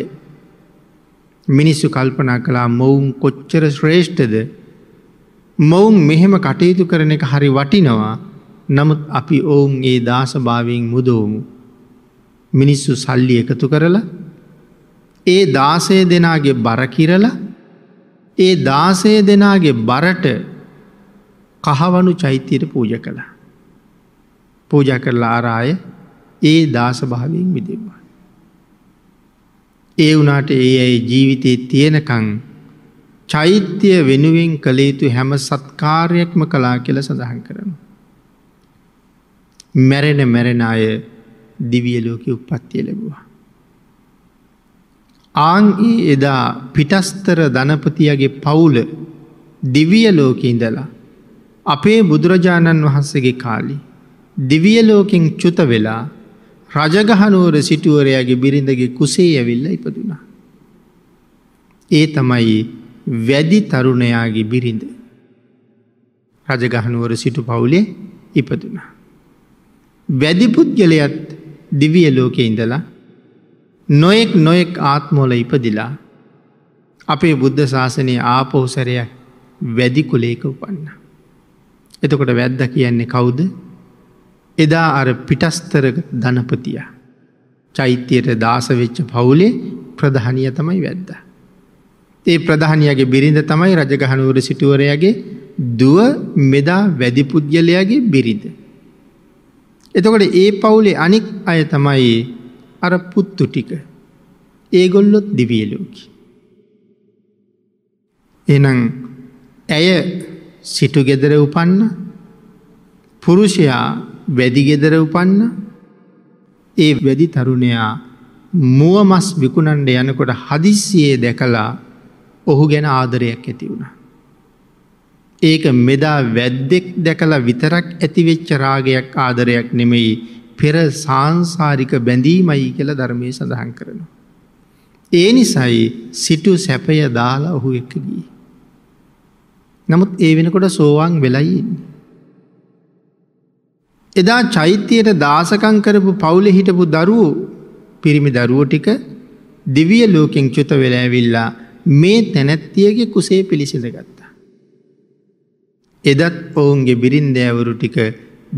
මිනිස්සු කල්පනා කළා මොවුන් කොච්චර ශ්‍රේෂ්ඨද? මොවුන් මෙහෙම කටයුතු කරන එක හරි වටිනවා. නමුත් අපි ඔවුන් ඒ දාසභාවයෙන් මුදවමු. මිනිස්සු සල්ලි එකතු කරලා ඒ 16 දෙනාගේ බර කිරලා ඒ 16 දෙනාගේ බරට කහවණු චෛත්‍යයට පූජා කළා. පූජා කරලා අර අය ඒ දාසභාවයෙන් මිදෙව්වා. ඒ වුණාට ඒ අය ජීවිතේ තියෙනකන් චෛත්‍ය වෙනුවෙන් කළ යුතු හැම සත්කාරයක්ම කළා කියලා සඳහන් කරනවා. මැරෙන මැරෙන අය දිව්‍ය ලෝකෙ උප්පත්තිය ලැබුවා. ආන් ඒ එදා පිටස්තර ධනපතියගේ පවුල දිව්‍ය ලෝකෙ ඉඳලා අපේ බුදුරජාණන් වහන්සේගේ කාලේ දිව්‍ය ලෝකෙන් චුත වෙලා රජගහනුවර සිටුවරයාගේ බිරිඳගේ කුසේ ඇවිල්ලා ඉපදුනා. ඒ තමයි වැදි තරුණයාගේ බිරිඳ. රජගහනුවර සිටු පවුලේ ඉපදුනා. වැදි පුද්ගලයාත් දිව්‍ය ලෝකේ ඉඳලා නොයෙක් නොයෙක් ආත්මවල ඉපදිලා අපේ බුද්ධ ශාසනයේ ආපහු සැරයක් වැදි කුලයක උපන්නා. එතකොට වැද්දා කියන්නේ කවුද? එදා අර පිටස්තර ධනපතියා. චෛත්‍යයට දාස වෙච්ච පවුලේ ප්‍රධානියා තමයි වැද්දා. ඒ ප්‍රධානියාගේ බිරිඳ තමයි රජගහනුවර සිටුවරයාගේ දුව මෙදා වැදි පුද්ගලයාගේ බිරිඳ. එතකොට ඒ පවුලේ අනික් අය තමයි අර පුත්තු ටික. ඒගොල්ලොත් දිව්‍ය ලෝකේ. එහෙනම් ඇය සිටු ගෙදර උපන්න, පුරුෂයා වැදි ගෙදර උපන්න. ඒ වැදි තරුණයා මුව මස් විකුණන්න යනකොට හදිස්සියේ දැකලා ඔහු ගැන ආදරයක් ඇති වුණා. ඒක මෙදා වැද්දෙක් දැකලා විතරක් ඇතිවෙච්ච රාගයක් ආදරයක් නෙමෙයි, පෙර සාංසාරික බැඳීමයි කියලා ධර්මයේ සඳහන් කරනවා. ඒ නිසායි සිටු සැපය දාලා ඔහු එක්ක ගියේ. නමුත් ඒ වෙනකොට සෝවාන් වෙලයි ඉන්නේ. එදා චෛත්‍යයට දාසකම් කරපු පවුලේ හිටපු දරුවෝ, පිරිමි දරුවෝ ටික දිව්‍ය ලෝකෙන් චුත වෙලා ඇවිල්ලා මේ තැනැත්තියගේ කුසේ පිළිසිඳ ගත්තා. එදත් ඔවුන්ගේ බිරින්දෑවරු ටික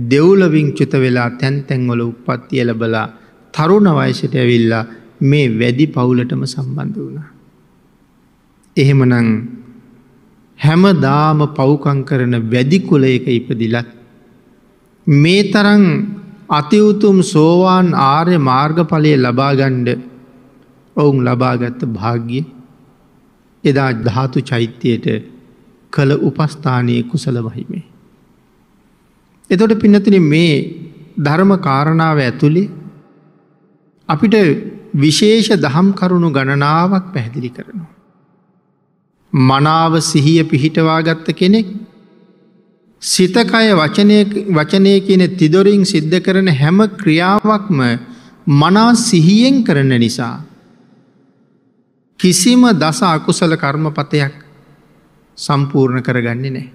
දෙව්ලොවින් චුත වෙලා තැන් තැන්වල උප්පත්තිය ලැබලා තරුණ වයසට ඇවිල්ලා මේ වැදි පවුලටම සම්බන්ධ වුණා. එහෙමනම් හැමදාම පව්කම් කරන වැදි කුලයක ඉපදිලත් මේ තරම් අති උතුම් සෝවාන් ආර්ය මාර්ගඵලය ලබා ගන්න ඔවුන් ලබාගත් භාග්‍ය එදා ධාතු චෛත්‍යයට කළ උපස්ථානයේ කුසල මහිමේ. එතකොට පින්නතුනි මේ ධර්ම කාරණාව ඇතුලේ අපිට විශේෂ දහම් කරුණු ගණනාවක් පැහැදිලි කරනවා. මනාව සිහිය පිහිටවා ගත්ත කෙනෙක් සිත කය වචනය කියන තිදොරින් සිද්ධ කරන හැම ක්‍රියාවක්ම මනා සිහියෙන් කරන නිසා කිසිම දස අකුසල කර්මපතයක් සම්පූර්ණ කරගන්නේ නැහැ.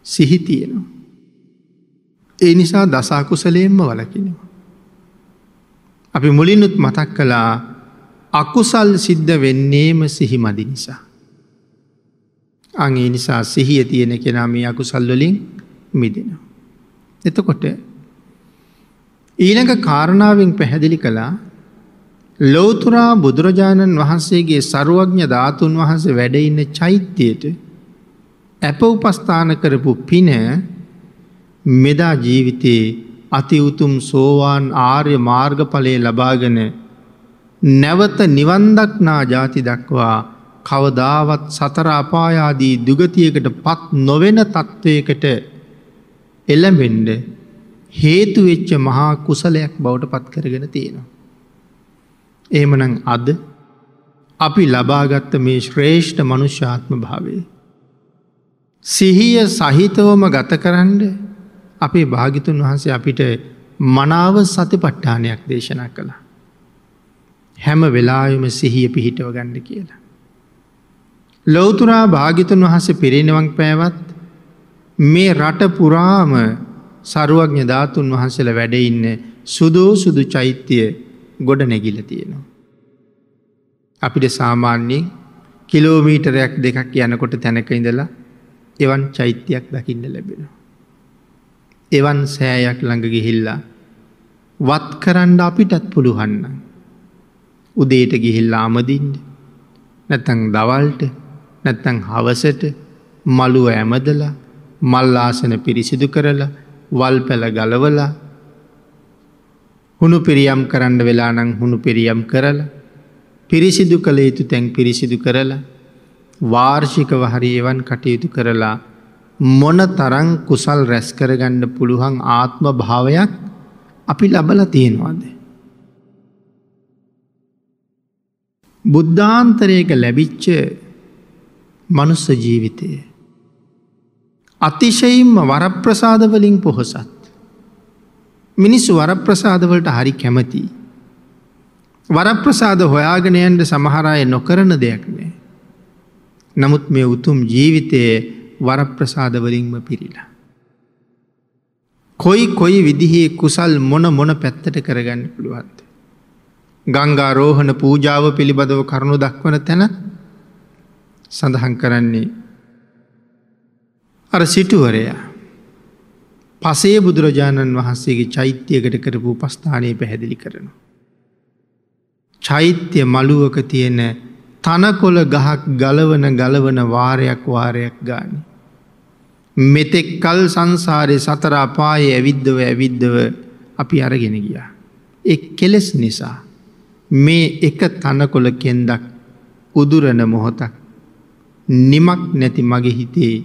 සිහි තියෙනවා. ඒ නිසා දස අකුසලයෙන්ම වළකිනවා. අපි මුලිනුත් මතක් කළා අකුසල් සිද්ධ වෙන්නේම සිහි මදි නිසා. අන් ඒ නිසා සිහිය තියෙන කෙනා මේ අකුසල් වලින් මිදෙනවා. එතකොට ඊළඟ කාරණාවෙන් පැහැදිලි කළා ලෝතුරා බුදුරජාණන් වහන්සේගේ සරුවඥ ධාතුන් වහන්සේ වැඩ ඉන්න චෛත්‍යයට අප උපස්ථාන කරපු පින මෙදා ජීවිතේ අති උතුම් සෝවාන් ආර්ය මාර්ගඵලය ලබාගෙන නැවත නිවන් දක්නා ජාති දක්වා කවදාවත් සතර අපාය ආදී දුගතියකට පත් නොවන තත්වයකට එළඹෙන්න හේතු වෙච්ච මහා කුසලයක් බවට පත් කරගෙන තියෙනවා. එහෙමනම් අද අපි ලබාගත්ත මේ ශ්‍රේෂ්ඨ මනුෂ්‍යාත්ම භාවය සිහිය සහිතවම ගත කරන්න අපේ භාග්‍යතුන් වහන්සේ අපිට මනාව සතිපට්ඨානයක් දේශනා කළා. හැම වෙලාවෙම සිහිය පිහිටව ගන්න කියලා. ලෞතුරා භාග්‍යතුන් වහන්සේ පිරිනිවන් පෑවත් මේ රට පුරාම සරුවඥ ධාතුන් වහන්සේලා වැඩ ඉන්න සුදෝ සුදු චෛත්‍ය ගොඩ නැගිලා තියෙනවා. අපිට සාමාන්‍යයෙන් කිලෝමීටරයක් දෙකක් යනකොට තැනක ඉඳලා එවන් චෛත්‍යයක් දකින්න ලැබෙනවා. එවන් සෑයක් ළඟ ගිහිල්ලා වත් කරන්න අපිටත් පුළුවන් නම් උදේට ගිහිල්ලා අමදින්න, නැත්නම් දවල්ට, නැත්නම් හවසට මළුව ඇමදලා මල් ආසන පිරිසිදු කරලා වල් පැල ගලවලා හුණු පිරියම් කරන්න වෙලා නම් හුණු පිරියම් කරලා පිරිසිදු කළ යුතු තැන් පිරිසිදු කරලා වාර්ෂිකව හරි එවන් කටයුතු කරලා මොන තරම් කුසල් රැස් කරගන්න පුළුවන් ආත්ම භාවයක් අපි ලබලා තියෙනවද? බුද්ධාන්තරයක ලැබිච්ච මනුස්ස ජීවිතය අතිශයින්ම වරප්‍රසාද වලින් පොහොසත්. මිනිස්සු වරප්‍රසාද වලට හරි කැමතියි. වරප්‍රසාද හොයාගෙන යන්න සමහර අය නොකරන දෙයක් නෑ. නමුත් මේ උතුම් ජීවිතයේ වරප්‍රසාද වලින්ම පිරීලා. කොයි කොයි විදිහේ කුසල් මොන මොන පැත්තට කරගන්න පුළුවන්ද? ගංගා රෝහණ පූජාව පිළිබඳව කරුණු දක්වන තැන සඳහන් කරන්නේ අර සිටුවරයා පසේ බුදුරජාණන් වහන්සේගේ චෛත්‍යයකට කරපු උපස්ථානය පැහැදිලි කරනවා. චෛත්‍ය මළුවක තියෙන තනකොළ ගහක් ගලවන ගලවන වාරයක් වාරයක් ගානේ මෙතෙක් කල් සංසාරේ සතර අපායේ ඇවිද්දව ඇවිද්දව අපි අරගෙන ගියා. ඒ කෙලෙස් නිසා මේ එක තනකොළ කෙන්දක් උදුරන මොහොතක් නිමක් නැති මගේ හිතේ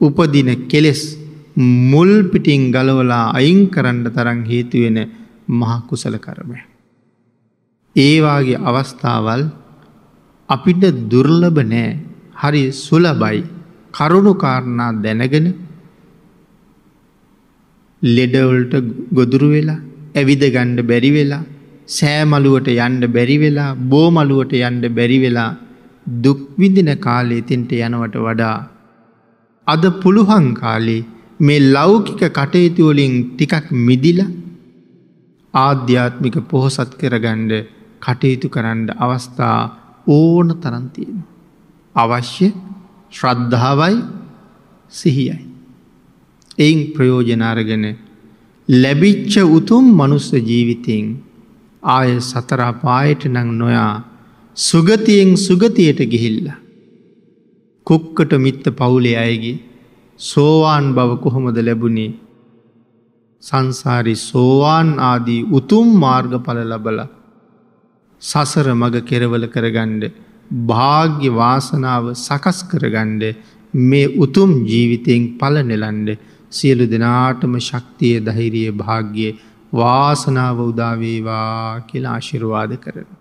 උපදින කෙලෙස් මුල් පිටින් ගලවලා අයින් කරන්න තරම් හේතු වෙන මහ කුසල කර්මයක්. ඒ වාගේ අවස්ථාවල් අපිට දුර්ලභ නෑ, හරි සුලභයි. කරුණු කාරණා දැනගෙන ලෙඩවලට ගොදුරු වෙලා, ඇවිද ගන්න බැරි වෙලා, සෑමලුවට යන්න බැරි වෙලා, බෝමලුවට යන්න බැරි වෙලා දුක් විඳින කාලේ තින්ට යනවට වඩා අද පුළුවන් කාලේ මේ ලෞකික කටයුතු වලින් ටිකක් මිදිලා ආධ්‍යාත්මික පොහොසත් කරගන්න කටයුතු කරන්න අවස්ථා ඕන තරම් තියෙනවා. අවශ්‍ය ශ්‍රද්ධාවයි සිහියයි. එයින් ප්‍රයෝජන අරගෙන ලැබිච්ච උතුම් මනුස්ස ජීවිතයෙන් ආය සතර අපායට නම් නොයා සුගතියෙන් සුගතියට ගිහිල්ලා කුක්කට මිත්ත පවුලේ අයගේ සෝවාන් බව කොහොමද ලැබුණේ? සංසාරේ සෝවාන් ආදී උතුම් මාර්ගඵල ලැබලා සසර මඟ කෙරවල කරගන්න භාග්‍ය වාසනාව සකස් කරගන්න මේ උතුම් ජීවිතයෙන් ඵල නෙලන්න සියලු දෙනාටම ශක්තිය, ධෛර්යය, භාග්‍ය වාසනාව උදා වේවා කියලා ආශිර්වාද කරනවා.